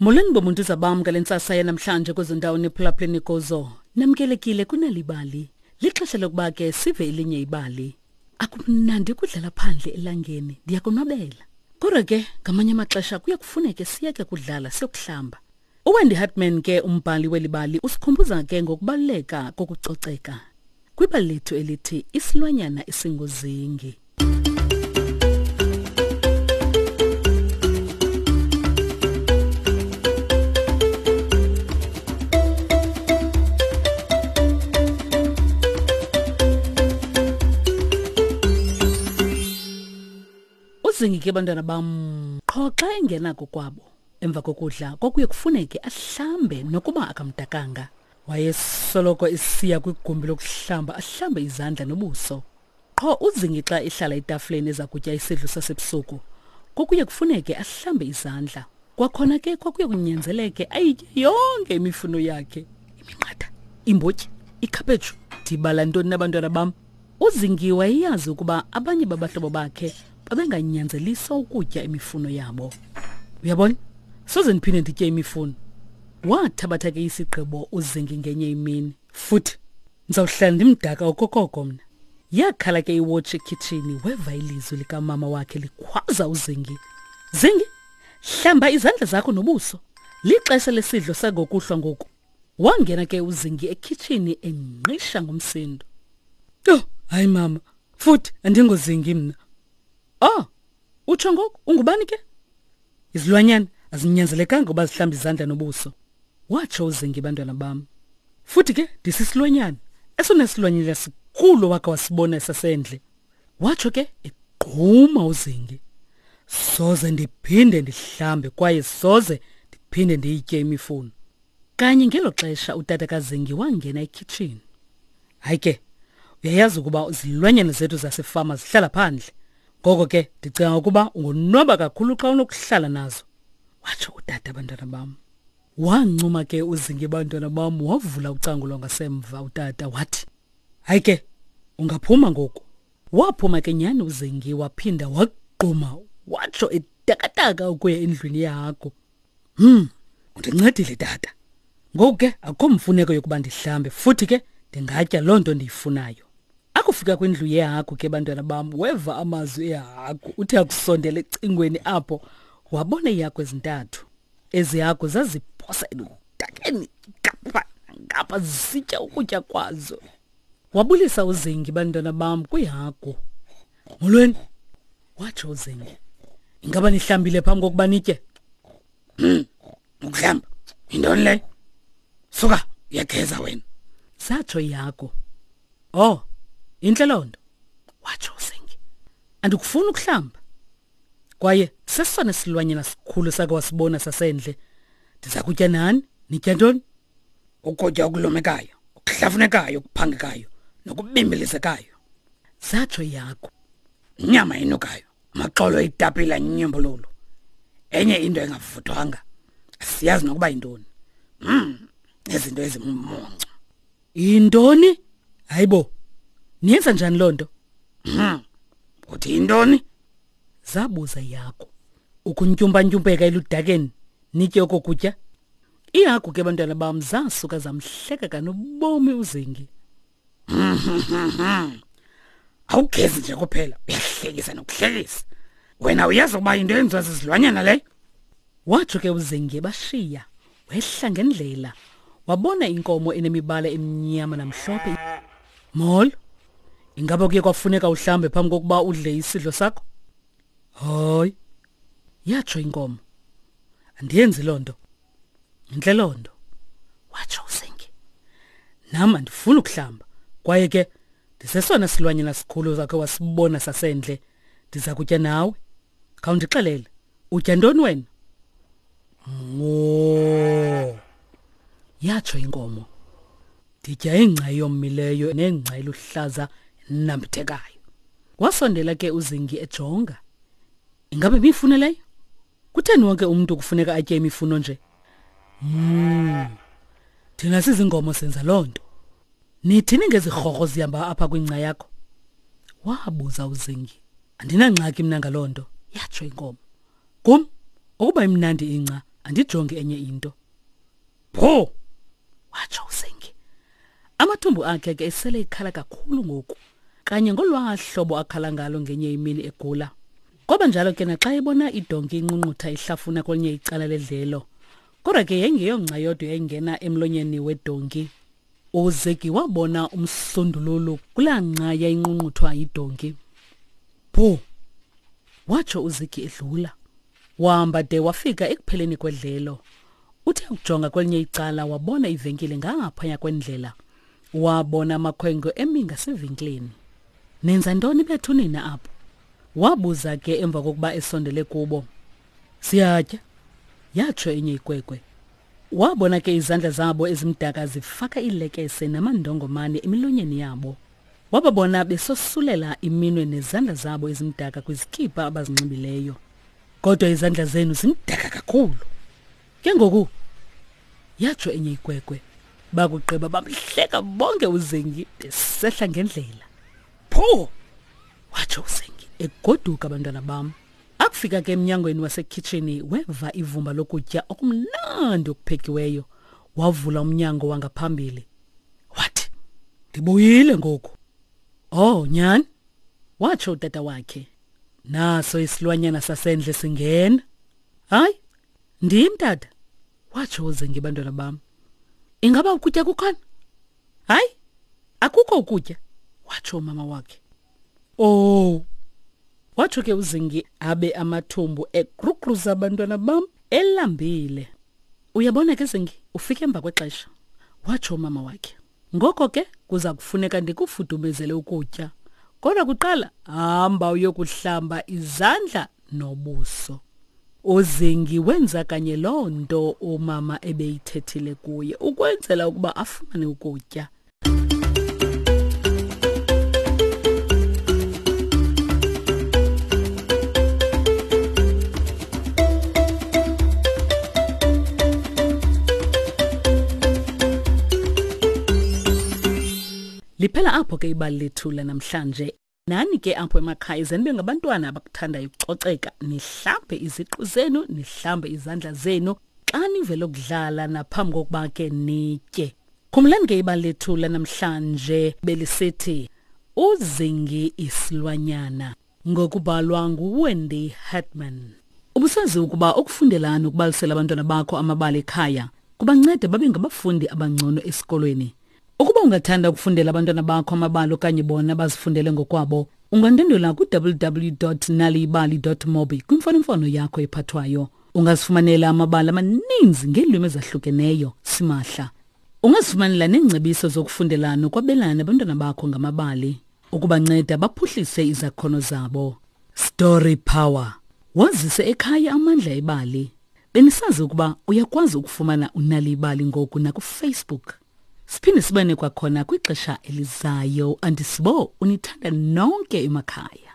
Molweni bomuntu bam ngale ntsasa yanamhlanje kwezo ndawo niphulaphuleni kuzo. Namkelekile kunalibali. Lixesha lokuba ke sive elinye ibali. Akumnandi ukudlala phandle elangeni, ndiyakonwabela. Kodwa ke ngamanye amaxesha kuye kufuneke siyeke kudlala siyokuhlamba. UWendy Hartman ke umbhali weli bali usikhumbuza ke ngokubaluleka kokucoceka. Kwibali lethu elithi isilwanyana esinguzingi. Uzingi ke bantwana bam qho xa engena kokwabo emva kokudla kwakuye kufuneke ahlambe nokuba akamdakanga. Wayesoloko esiya kwigumbi lokuhlamba ahlambe izandla nobuso. Qho uZingi xa ehlala etafileni eza kutya isidlo sasebusuku, kwakuye kufuneke ahlambe izandla. Kwakhona ke kwakuye kunyanzeleke ayitye yonke imifuno yakhe. Iminqatha, imbotyi, ikhaphetshu. Ndibala ntoni nabantwana bam? UZingi wayeyazi ukuba abanye babahlobo bakhe babenganyanzeliswa ukutya imifuno yabo. Uyabona? Soze ndiphinde nditye imifuno. Wathabatha ke isigqibo uZingi ngenye imini. Futhi ndizawuhlala ndimdaka okokoko mna. Yakhala ke iwotshi ekhitshini weva ilizwi likamama wakhe likhwaza uZingi. Zingi, hlamba izandla zakho nobuso. Lixesha lesidlo sangokuhlwa ngoku. Wangena ke uZingi ekhitshini engqisha ngumsindo. Yho, hayi mama, futhi andingozingi mna. Oh, utsho ngoku ungubani ke? Izilwanyana azinyanzelekanga uba zihlambe izandla nobuso. Watsho uZingi bantwana bam. Futhi ke ndisisilwanyana esona silwanyana sikhulu wake wasibona esasendle. Watsho ke egquma uZingi. Soze ndiphinde ndihlambe kwaye soze ndiphinde ndiyitye imifuno. Kanye ngelo xesha utata kaZingi wangena ekhitshini. Hayi ke, uyayazi ukuba izilwanyana zethu zasefama zihlala phandle. Ngoko ke ndicinga ukuba ungonwaba kakhulu xa unokuhlala nazo. Watsho utata bantwana bam. Wancuma ke uZingi bantwana bam wavula ucango lwangasemva utata wathi, Hayi ke, ungaphuma ngoku. Waphuma ke nyhani uZingi waphinda wagquma watsho etakataka ukuya endlwini yehagu. Hmm, undincedile tata. Ngoku ke akukho mfuneko yokuba ndihlambe futhi ke ndingatya loo nto ndiyifunayo. Akufika kwindlu yehagu ke bantwana bam weva amazwi ehagu uthe akusondela ecingweni apho wabona iihagu ezintathu. Ezi hagu zaziphosa eludakeni ngapha ngapha zisitya ukutya kwazo. Wabulisa uZingi bantwana bam kwihagu. Molweni, watsho uZingi. Ingaba nihlambile phambi kokuba nitye? Hmm, ukuhlamba yintoni leyo? Suka uyageza wena. Satsho ihagu. Oh, intle loo nto, watsho uZingi. Andikufuni ukuhlamba. Kwaye sesona silwanyana sikhulu sake wasibona sasendle. Ndiza kutya nani? Nitya ntoni? Ukutya okulumekayo, okuhlafunekayo, okuphangekayo nokubimbilizekayo. Zatsho ihagu. Inyama enukayo, amaxolo etapile anyimbululu. Enye into engavuthwanga. Asiyazi nokuba yintoni. Mm, nezinto ezimuncu. Yintoni? Hayibo. Niyenza njani loo nto? Hmm. Uthi yintoni? Zabuza ihagu. Ukuntyumpa-ntyumpeka eludakeni nitye oko kutya? Ihagu ke bantwana bam zasuka zamhleka kanobomi uZingi. Awugezi nje kuphela, uyahlekisa nokuhlekisa. Wena uyazi ukuba into yenziwa zizilwanyana leyo? Watsho ke uZingi ebashiya, wehla ngendlela, wabona inkomo enemibala emnyama namhlophe. Molo. Ingaba kuye kwafuneka uhlambe phambi kokuba udle isidlo sakho? Hayi. Yatsho inkomo. Andiyenzi loo nto. Intle loo nto. Watsho uZingi. Nam andifuni ukuhlamba. Kwaye ke ndisesona silwanyana sikhulu zakhe wasibona sasendle. Ndiza kutya nawe. Khawundixelele, utya ntoni wena? Moo. Yatsho inkomo. Nditya ingca eyomileyo nengca eluhlaza enambithekayo. Wasondela ke uZingi ejonga. Ingabe imifuno leyo? Kutheni wonke umntu kufuneka atye imifuno nje? Mm. Thina sizingomo senza loo nto. Nithini ngezirhorho zihamba apha kwingca yakho? Wabuza uZingi. Andinangxaki mna ngaloo nto, yatsho inkomo. Kum, ukuba imnandi ingca, Andijongi enye into. Pho! Watsho uZingi. Amathumbu akhe ke esele ikhala kakhulu ngoku. Kanye ngolwaa hlobo akhala ngalo ngenye imini egula. Kwaba njalo ke naxa ebona idonki inqunqutha ihlafuna kwelinye icala ledlelo. Kodwa ke yayingeyongca yodwa yayingena emlonyeni wedonki. UZegi wabona umsundululu kulaa ngca yayinqunquthwa yidonki. Bhu! Watsho uZigi edlula. Wahamba de wafika ekupheleni kwedlelo. Uthe ukujonga kwelinye icala wabona ivenkile ngaphaya kwendlela. Wabona amakhwenkwe emi ngasevenkileni. Nenza ntoni bethu nina apho? Wabuza ke emva kokuba esondele kubo. Siyatya, yatsho enye ikwekwe. Wabona ke izandla zabo ezimdaka zifaka iilekese namandongomane emilonyeni yabo. Wababona besosulela iminwe nezandla zabo ezimdaka kwizikipa abazinxibileyo. Kodwa izandla zenu zimdaka kakhulu. Ke ngoku yatsho enye ikwekwe. Bakugqiba bamhleka bonke uZengi besehla ngendlela. Pho! Watsho uZengi egoduka abantwana bam. Akufika ke emnyangweni wasekhitshini weva ivumba lokutya okumnandi okuphekiweyo. Wavula umnyango wangaphambili. Wathi, "Ndibuyile ngoku." Oh, nyhani? Watsho utata wakhe. Naso isilwanyana sasendle singena. Hayi, ndim tata, watsho uZengi bantwana bam. Ingaba ukutya kukhona? Hayi, akukho ukutya, watsho umama wakhe. Oh, watsho ke uZingi abe amathumbu egrugruza abantwana bam elambile. Uyabona ke Zingi, ufike emva kwexesha, watsho umama wakhe. Ngoko ke kuza kufuneka ndikufudumezele ukutya. Kodwa kuqala hamba uyokuhlamba izandla nobuso. UZingi wenza kanye loo nto umama ebeyithethile kuye ukwenzela ukuba afumane ukutya. Liphela apho ke ibali lethu lanamhlanje. Nani ke apho emakhaya ze nibe ngabantwana abakuthandayo ukucoceka, nihlambe iziqu zenu, nihlambe izandla zenu xa nivele ukudlala naphambi kokuba ke nitye. Khumbulani ke ibali lethu lanamhlanje belisithi uZingi isilwanyana ngokubhalwa nguWendy Hartman. Ubusazi ukuba ukufundela nokubalisela abantwana bakho amabali ekhaya kubanceda babe ngabafundi abangcono esikolweni. Ukuba ungathanda ukufundela abantwana bakho amabali okanye bona bazifundele ngokwabo, ungandwendwela ku-www.naliyibali.mobi kwimfonomfono yakho ephathwayo. Ungazifumanela amabali amaninzi ngeelwimi ezahlukeneyo simahla. Ungazifumanela neengcebiso zokufundela nokwabelana nabantwana bakho ngamabali ukubanceda baphuhlise izakhono zabo. Story Power. Wazise ekhaya amandla ebali. Benisazi ukuba uyakwazi ukufumana uNal'ibali ngoku nakuFacebook. Siphinde sibane kwakhona kwixesha elizayo. Andisibo unithanda nonke emakhaya.